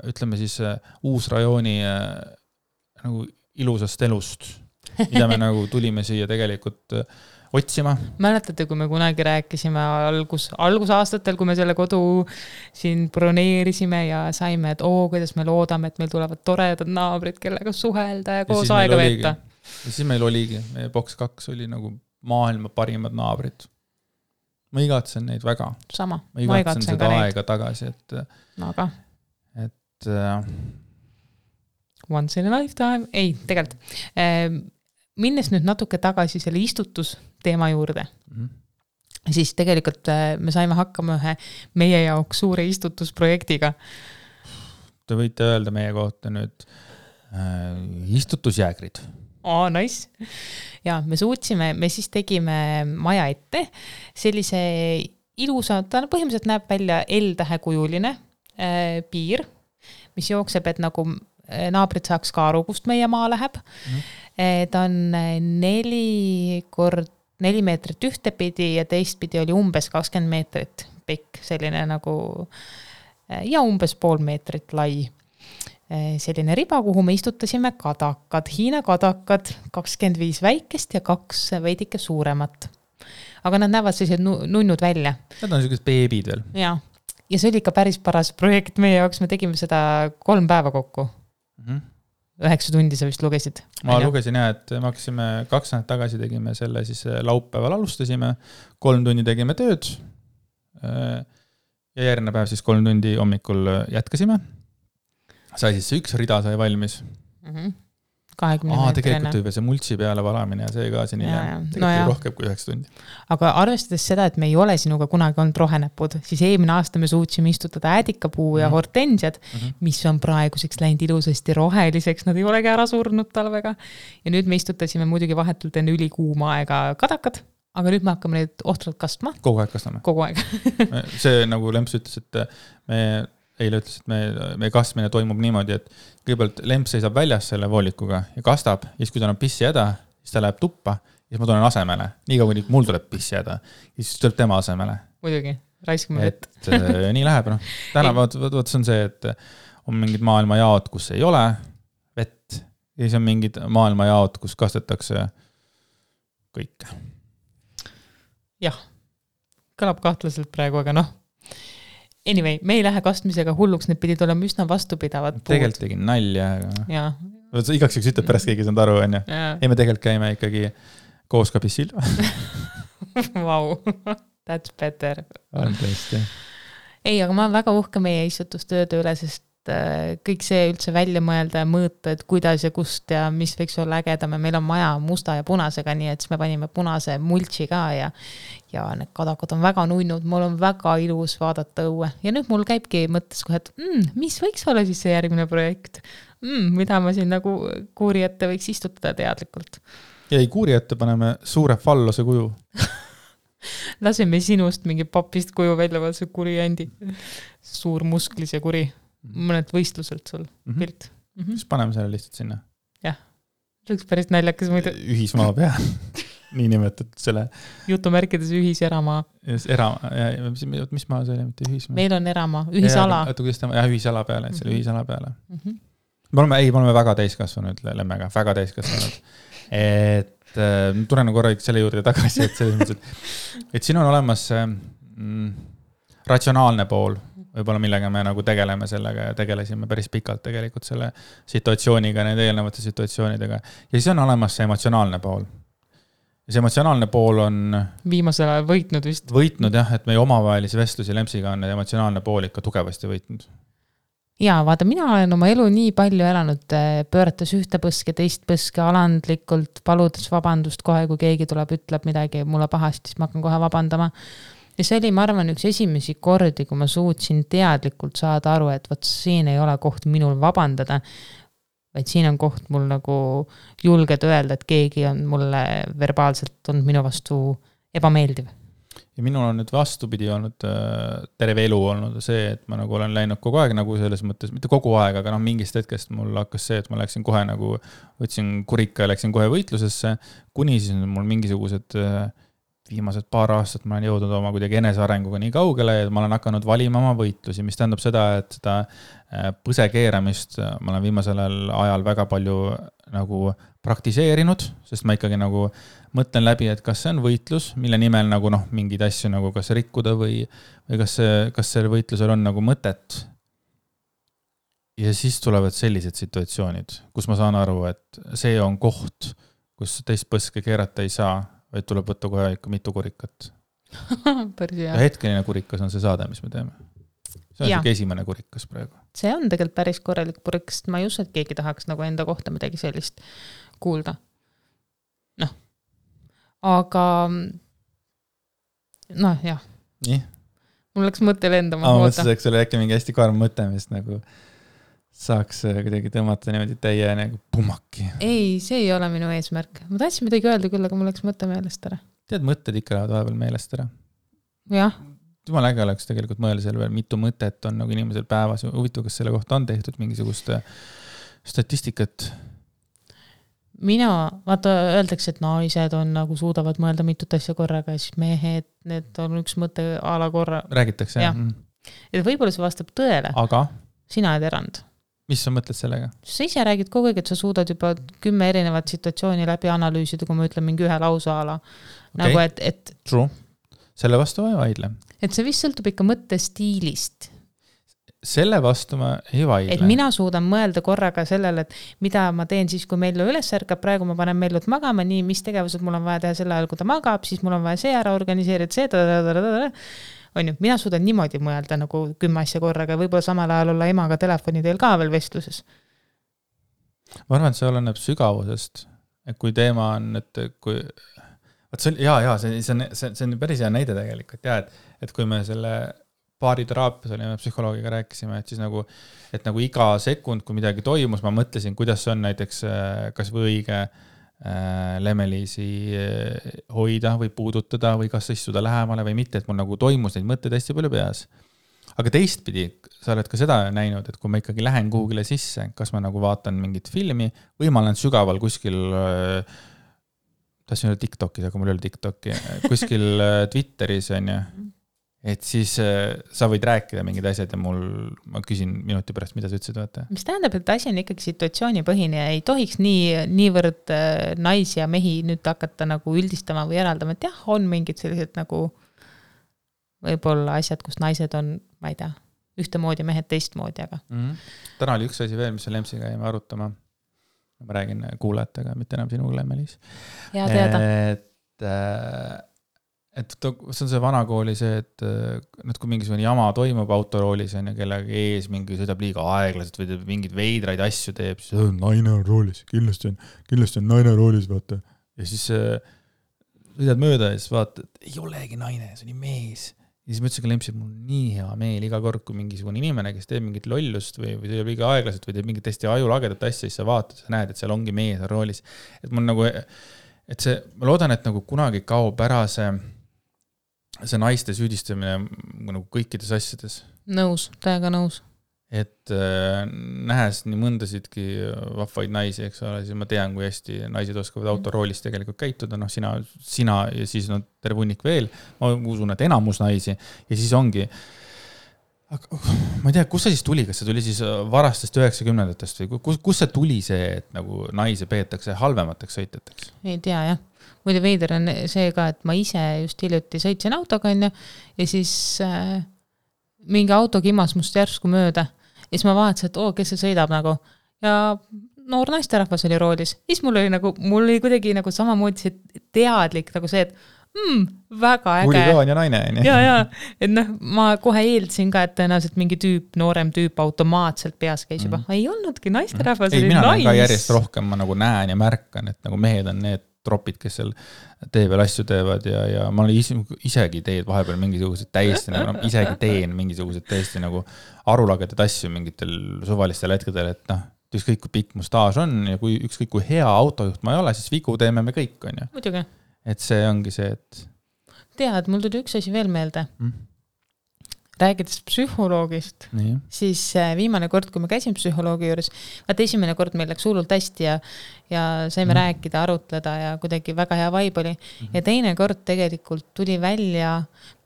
ütleme siis Uusrajooni nagu ilusast elust, mida me nagu tulime siia tegelikult otsima. Mäletate, kui me kunagi rääkisime algusaastatel, kui me selle kodu siin broneerisime ja saime, et kuidas me loodame, et meil tulevad toredad naabrid, kellega suhelda ja koos aega veeta. Ja siis meil oligi, meie boks 2 oli nagu maailma parimad naabrid. Ma igatsen neid väga. Sama. Ma igatsen seda aega tagasi, et aga once in a lifetime. Ei, tegelikult minnes nüüd natuke tagasi selle istutusteema juurde, siis tegelikult me saime hakkama ühe meie jaoks suure istutusprojektiga. Te võite öelda meie kohta nüüd istutusjäägrid. Nice. Ja me siis tegime maja ette sellise ilusa, ta põhimõtteliselt näeb välja L-tähekujuline piir, mis jookseb, et nagu naabrid saaks ka aru, kust meie maa läheb. Ta on 4 meetrit ühtepidi ja teistpidi oli umbes 20 meetrit pikk, selline nagu ja umbes 0,5 meetrit lai. Selline riba, kuhu me istutasime kadakad, Hiina kadakad, 25 väikest ja 2 veidike suuremat. Aga nad näevad sellised nunnud välja. Nad on sellised beebid veel. Ja see oli ikka päris paras projekt meie jaoks, me tegime seda 3 päeva kokku. 9 tundi sa vist lugesid? Ma lugesin et me hakkasime 2 nädalat tagasi tegime selle, siis laupäeval alustasime, 3 tundi tegime tööd ja järgmine päev siis 3 tundi hommikul jätkasime. Sai siis see 1 rida sai valmis. 20 meetrine. Tegelikult või see multsi peale valamine ja see ka siin tegelikult rohkem kui 9 tundi. Aga arvestades seda, et me ei ole sinuga kunagi olnud rohenäpud, siis eelmine aasta me suutsime istutada äädikapuu ja hortensiad, mis on praeguseks läinud ilusasti roheliseks, nad ei olegi ära surnud talvega. Ja nüüd me istutasime muidugi vahetult enne ülikuuma aega kadakad, aga nüüd me hakkame neid ohtralt kastma. Kogu aeg kastame. Kogu aeg. See nagu Lemps ütles, et me eile ütles, et meie kastmine toimub niimoodi, et kõigepealt lemp seisab väljas selle voolikuga ja kastab, ja siis kui tal on pissihäda, siis ta läheb tuppa ja siis ma tulen asemele. Nii kaua, kui mul tuleb pissihäda, ja siis tuleb tema asemele. Muidugi, raiskame vett. Nii läheb, noh. Täna võt see on see, et on mingid maailmajaod, kus ei ole vett, ja siis on mingid maailmajaod, kus kastetakse kõike. Jah, kõlab kahtlaselt praegu, aga noh. Anyway, me ei lähe kastmisega hulluks, need pidid olema üsna vastupidavad puud. Tegelikult tegin nalja, aga ja. Igaks üks ütleb pärast keegi saanud aru, on ju. Ei, me tegelikult käime ikkagi koos ka pissil. Wow, that's better. On tõesti. Ei, aga ma olen väga uhke meie istutustööde üle, sest kõik see üldse välja mõelda ja mõõta, et kuidas ja kust ja mis võiks olla ägedam ja meil on maja musta ja punasega, nii et siis me panime punase multsi ka ja need kadakad on väga nunnud, mul on väga ilus vaadata õue ja nüüd mul käibki mõttes kohe, et mis võiks olla siis see järgmine projekt, mida ma siin nagu kuuri ette võiks istutada teadlikult. Ja ei, kuuri ette paneme suure fallose kuju. Laseme sinust mingi papist kuju välja, vaat see kuri ändi. Suur musklis ja kuri. Mõned võistluselt sul pilt. Siis paneme selle lihtsalt sinna. Jah, see oleks päris naljakas muidu. Ühismaa pea, nii nimetatud selle. Jutumärkides ühiseramaa. Mis maa see oli, mitte ühismaa? Meil on eramaa, ühisala. Ühisala peale, et selle ühisala peale. Me oleme väga täiskasvanud lemmega, väga täiskasvanud. Et tulen korra selle juurde tagasi, et siin on olemas ratsionaalne pool, võib-olla millega me nagu tegeleme sellega ja tegelesime päris pikalt tegelikult selle situatsiooniga, need eelnevate situatsioonidega. Ja siis on olemas see emotsionaalne pool. Ja see emotsionaalne pool on viimasel ajal võitnud vist. Võitnud jah, et meie omavahelisi vestlusi Lempsiga on emotsionaalne pool ikka tugevasti võitnud. Jaa, vaata, mina olen oma elu nii palju elanud, pöörates ühte põske, teist põske alandlikult, paludes vabandust kohe, kui keegi tuleb, ütleb midagi mulle pahasti, siis ma hakkan kohe vabandama. Ja see oli, ma arvan, üks esimesi kordi, kui ma suutsin teadlikult saada aru, et võt siin ei ole koht minul vabandada, vaid siin on koht mul nagu julged öelda, et keegi on mulle verbaalselt olnud minu vastu ebameeldiv. Ja minul on nüüd vastupidi olnud terve elu olnud see, et ma nagu olen läinud kogu aeg nagu selles mõttes, mitte kogu aeg, aga mingist hetkest mul hakkas see, et ma läksin kohe nagu, võtsin kurika ja läksin kohe võitlusesse, kuni siis mul mingisugused viimased paar aastat ma olen jõudnud oma kuidagi enesearenguga nii kaugele, et ma olen hakanud valima oma võitlusi, mis tähendab seda, et seda põse keeramist ma olen viimasel ajal väga palju nagu praktiseerinud, sest ma ikkagi nagu mõtlen läbi, et kas see on võitlus, mille nimel nagu mingid asju nagu kas rikkuda või kas see võitlusel on nagu mõtet. Ja siis tulevad sellised situatsioonid, kus ma saan aru, et see on koht, kus teist põske keerata ei saa, vaid tuleb võtta kohe ikka mitu kurikat. Ja hetkeline kurikas on see saade, mis me teeme. See on siuke esimene kurikas praegu. See on tegelikult päris korralik kurikas, ma ei usu, et keegi tahaks nagu enda kohta midagi sellist kuulda. Aga jah. Nii? Mul läks mõte lendama. Ma mõtlesin, et see oli äkki mingi hästi karm mõte, mis nagu saaks kuidagi tõmmata niimoodi teie nagu pumaki. Ei, see ei ole minu eesmärk. Ma tahtsin midagi öelda küll, aga mul läks mõte meelest ära. Tead, mõtted ikka lähevad vahepeal meelest ära. Jah. Jumal äge oleks tegelikult mõelda selle veel, mitu mõtet on nagu inimesel päevas. Huvitav, kas selle kohta on tehtud mingisugust statistikat? Mina, vaata, öeldakse, et naised on nagu suudavad mõelda mitut asja korraga ja siis mehed, need on üks mõte a la korra. Räägitakse, jah. Et võib-olla see vastab tõele. Aga? Sina oled erand. Mis sa mõtled sellega? Sa ise räägid kogu aeg, et sa suudad juba 10 erinevat situatsiooni läbi analüüsida, kui ma ütlen mingi ühe lausa ala. Okay. Nagu, et True. Selle vastu ma ei vaidle. Et see vist sõltub ikka mõttestiilist. Selle vastu ma ei vaidle. Et mina suudan mõelda korraga sellele, et mida ma teen siis, kui Mellu üles ärkab, praegu ma panen Mellut magama, nii, mis tegevused mul on vaja teha selle ajal, kui ta magab, siis mul on vaja see ära organiseerida, see on ju, mina suudan niimoodi mõelda nagu 10 asja korraga ja võib-olla samal ajal olla emaga telefoni teel ka veel vestluses. Ma arvan, et see oleneb sügavusest, et kui teema on, et kui see on päris hea näide tegelikult, et kui me selle baariteraapias olime psühholoogiga rääkisime, et siis nagu iga sekund, kui midagi toimus, ma mõtlesin, kuidas see on näiteks kas või õige Lemeliisi hoida või puudutada või kas istuda lähemale või mitte, et mul nagu toimus neid mõtteid hästi palju peas. aga teistpidi, sa oled ka seda näinud, et kui ma ikkagi lähen kuhugile sisse, kas ma nagu vaatan mingit filmi või ma olen sügaval kuskil, tahtsin öelda TikTokis, aga mul ei ole TikToki, kuskil Twitteris on ju, et siis sa võid rääkida mingid asjad ja ma küsin minuti pärast, mida sa ütlesid, vaata. Mis tähendab, et asi on ikkagi situatsioonipõhine ja ei tohiks niivõrd naisi ja mehi nüüd hakata nagu üldistama või eraldama, et jah, on mingid sellised nagu võib-olla asjad, kus naised on, ma ei tea, ühtemoodi, mehed teistmoodi, aga. Täna oli üks asi veel, mis Lemsiga jäime arutama. Ma räägin kuulajatega, mitte enam sinuga, Meelis. Ja teada. Et see on see vanakooli see, et kui mingisugune jama toimub autoroolis on ja kellega ees mingi sõidab liiga aeglaselt või mingid veidraid asju teeb, siis naine on roolis, kindlasti on naine roolis, vaata. Ja siis sõidad mööda ja siis vaata, et ei olegi naine, see on mees. Ja siis ma ütlesin ka Lempsi, et mul on nii hea meel iga kord, kui mingisugune inimene, kes teeb mingit lollust või teeb liiga aeglaselt või teeb mingit täiesti ajulagedat asja, siis sa vaatad, sa näed, et seal ongi mees on roolis. Et mul nagu, et see, ma loodan, et nagu kunagi kaob ära see naiste süüdistamine nagu kõikides asjades. Nõus, täiega nõus. Et nähes nii mõndasidki vahvaid naisi, eks ole, siis ma tean, kui hästi naised oskavad autoroolis tegelikult käituda, sina ja siis terve hunnik veel, ma usun, et enamus naisi ja siis ongi, ma ei tea, kus see siis tuli, kas see tuli siis varastest 90-ndatest või kus see tuli see, et nagu naisi peetakse halvemateks sõitjateks? Ei tea, jah. Muide veider on see ka, et ma ise just hiljuti sõitsin autoga ja siis mingi auto kimas must järsku mööda. Ja siis ma vaatasin, et kes see sõidab nagu. Ja noor naisterahvas oli roolis. Ja siis mul oli kuidagi nagu samamoodi see teadlik nagu see, et väga äge. Huligaan ja naine. Ja. Et ma kohe eeldasin ka, et tõenäoliselt mingi noorem tüüp automaatselt peas käis juba. Ei olnudki naisterahvas. Ei, mina olen ka järjest rohkem, ma nagu näen ja märkan, et nagu mehed on need tropid, kes seal tee peal asju teevad ja ma olen isegi teed vahepeal mingisugused täiesti nagu, isegi teen mingisugused täiesti nagu arulagedad asju mingitel suvalistel hetkedel, et ükskõik kui pikk mu staaž on ja kui ükskõik kui hea autojuht ma ei ole, siis vigu teeme me kõik, on ju. Muidugi. Et see ongi see, et... Tead, mul tuli üks asi veel meelde. Räägides psühholoogist, siis viimane kord, kui ma käisin psühholoogi juures, esimene kord meil läks hullult hästi ja saime rääkida, arutleda ja kuidagi väga hea vibe oli. Ja teine kord tegelikult tuli välja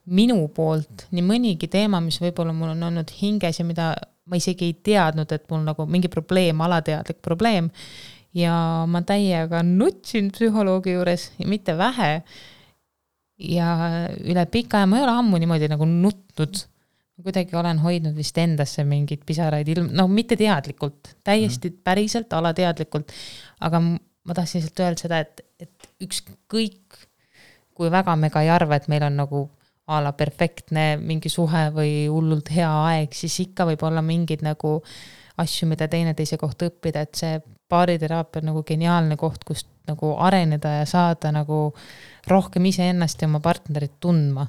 minu poolt nii mõnigi teema, mis võib-olla mul on olnud hinges ja mida ma isegi ei teadnud, et mul nagu mingi probleem, alateadlik probleem. Ja ma täiega nutsin psühholoogi juures ja mitte vähe. Ja üle pika aja ma ei ole ammu niimoodi nagu nutnud. Kuidagi olen hoidnud vist endasse mingid pisaraid mitte teadlikult, täiesti päriselt alateadlikult, aga ma tahtsin lihtsalt öelda seda, et ükskõik kui väga me ka ei arva, et meil on nagu ala perfektne mingi suhe või hullult hea aeg, siis ikka võib olla mingid nagu asju, mida teineteise kohta õppida, et see paariteraapia on nagu geniaalne koht, kust nagu areneda ja saada nagu rohkem iseennast ja oma partnerit tundma.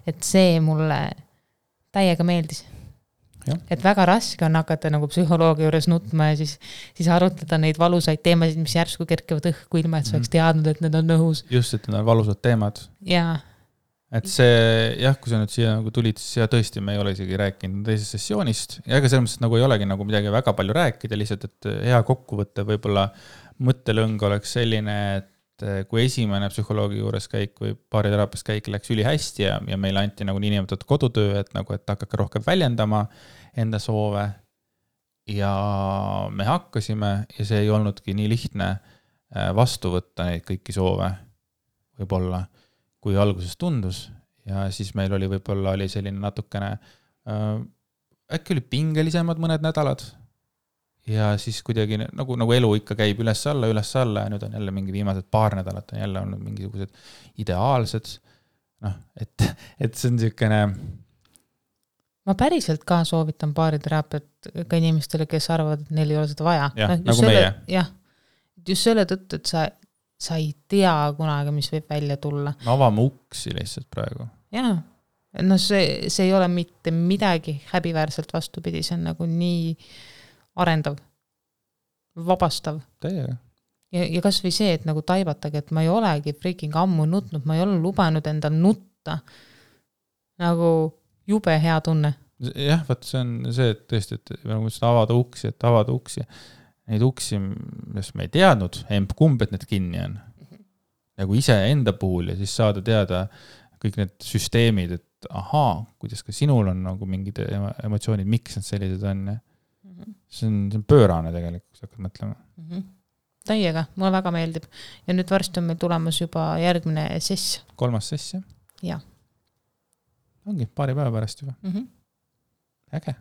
Et see mulle täiega meeldis. Ja. Et väga raske on hakata nagu psühholoogi juures nutma ja siis arutleda neid valusaid teemasid, mis järsku kerkevad õhku ilma, et sa oleks teadnud, et need on õhus. Just, et need on valusad teemad. Jaa. Et see, kui sa nüüd siia nagu tulid, siis tõesti me ei ole isegi rääkinud teisest sessioonist ja ega selles mõttes nagu ei olegi nagu midagi väga palju rääkida, lihtsalt, et hea kokkuvõte võib-olla mõttelõng oleks selline, et kui esimene psühholoogi juures käik või paariterapias käik läks üli hästi ja meile anti nagu niinimetatud kodutöö, et hakake rohkem väljendama enda soove ja me hakkasime ja see ei olnudki nii lihtne vastu võtta neid kõiki soove võib-olla, kui alguses tundus ja siis meil oli võib-olla selline natukene äkki oli pingelisemad mõned nädalad ja siis kuidagi nagu elu ikka käib üles-alla ja nüüd on jälle mingi viimased paar nädalat on jälle olnud mingisugused ideaalsed, et see on niisugune... Ma päriselt ka soovitan paariterapiat ka inimestele, kes arvavad, et neil ei ole seda vaja. Jah, nagu meie. Jah, just selle tõttu, et sa ei tea kunagi, mis võib välja tulla. Me avame uksi lihtsalt praegu. Jah, see ei ole mitte midagi häbiväärselt vastupidi, see on nagu nii... arendav, vabastav. Täiega. Ja kas või see, et nagu taibatage, et ma ei olegi freaking ammu nutnud, ma ei ole lubanud endal nutta. Nagu jube hea tunne. jah, vaat see on see, et tõesti, et nagu mõtlesin, avada uksi. Neid uksi, mis me ei teadnud, kumb, et need kinni on. Nagu ise enda puhul ja siis saada teada kõik need süsteemid, et ahaa, kuidas ka sinul on nagu mingid emotsioonid, miks need sellised on. See on pöörane tegelikult, kui sa hakkad mõtlema. Täiega, mulle väga meeldib. Ja nüüd varsti on meil tulemas juba järgmine sess. 3. sess, jah? Jah. Ongi, paari päeva pärast juba. Äge.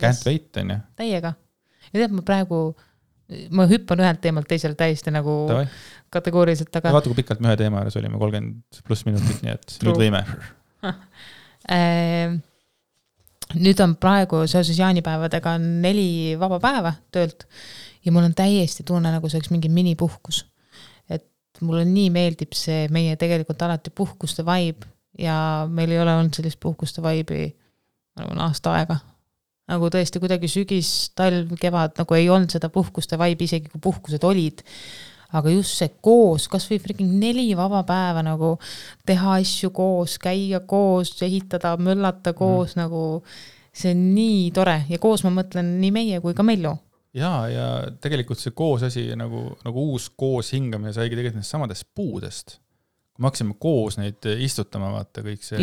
Can't wait, on ju. Täiega. Ja tead, ma hüppan ühelt teemalt teisele täiesti nagu Tavai. Kategooriliselt, aga... Vaata, kui pikalt me ühe teema juures olime, 30+ minutit, nii et nüüd võime. Nüüd on praegu seoses jaanipäevadega 4 vaba päeva töölt ja mul on täiesti tunne, nagu see oleks mingi minipuhkus. Et mulle nii meeldib see meie tegelikult alati puhkuste vibe ja meil ei ole olnud sellist puhkuste vibe'i aasta aega. Nagu tõesti kuidagi sügis, talv, kevad, nagu ei olnud seda puhkuste vibe, isegi kui puhkused olid. Aga just see koos, kas või freaking 4 vaba päeva nagu teha asju koos, käia koos, ehitada, möllata koos, nagu see on nii tore. Ja koos ma mõtlen nii meie kui ka Mellu. Ja tegelikult see koos asi, nagu uus koos hingamine saigi tegelikult neist samadest puudest. Kui me hakkasime koos neid istutama, vaata kõik see,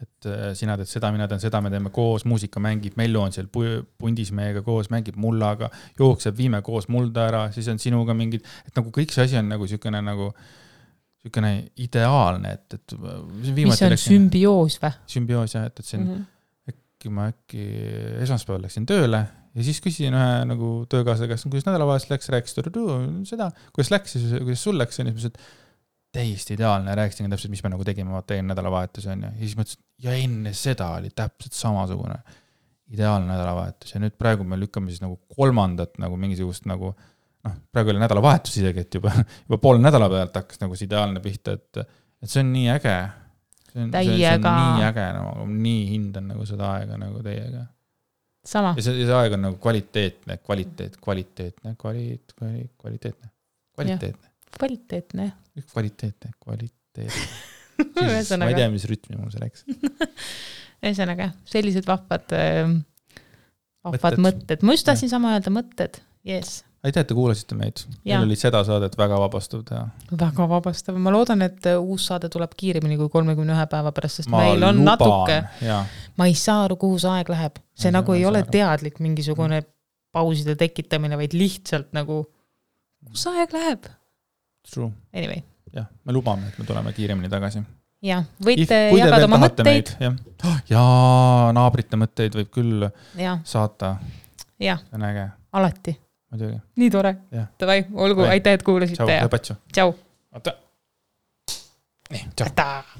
et sina teed seda, mina teen seda, me teeme koos, muusika mängib, Mellu on seal pundis meiega koos, mängib mullaga, jookseb, viime koos mulda ära, siis on sinuga mingid, et nagu kõik see asi on nagu sükene ideaalne, et mis on sümbioos või? Sümbioos, jah, et see on, ma äkki esmaspäeval läksin tööle ja siis küsisin ühe nagu töökaasle käest, kuidas nädalavahetus läks, rääkis seda, kuidas läks, kuidas sul läks, ja siis täiesti ideaalne, rääkisin täpselt, mis me nagu tegime, vaata enne nädalavahetus on ja siis mõtlesin, ja enne seda oli täpselt samasugune ideaalne nädalavahetus ja nüüd praegu me lükkame siis nagu 3. nagu mingisugust nagu, praegu oli nädalavahetus isegi, et juba poole nädala pealt hakkas nagu see ideaalne pihta, et see on nii äge. See on nii äge, nagu nii hindan nagu seda aega nagu teiega. Sama. Ja see aeg on nagu kvaliteetne. Ma ei tea, mis rütmi mul see läks. Ühesõnaga, sellised vahvad mõtted. Ma just tahtsin sama öelda mõtted. Yes. Aitäh, et te kuulasite meid. Meil oli seda saadet väga vabastav teha. Väga vabastav. Ma loodan, et uus saade tuleb kiiremini kui 31 päeva pärast, sest meil on natuke. Ma ei saa aru, kuhu see aeg läheb. See nagu ei ole teadlik mingisugune pauside tekitamine, vaid lihtsalt nagu, kus see aeg läheb? True. Anyway. Jah, me lubame, et me tuleme kiiremini tagasi. Ja, võite jagada oma mõtteid. Ja naabrite mõtteid võib küll saata. Ja, äge. alati. Muidugi. Nii tore. Tavai, olgu, aitäh, et kuulasite. Tšau, lõpatsu. Tšau. Oota. Nii, tšau. Aitäh.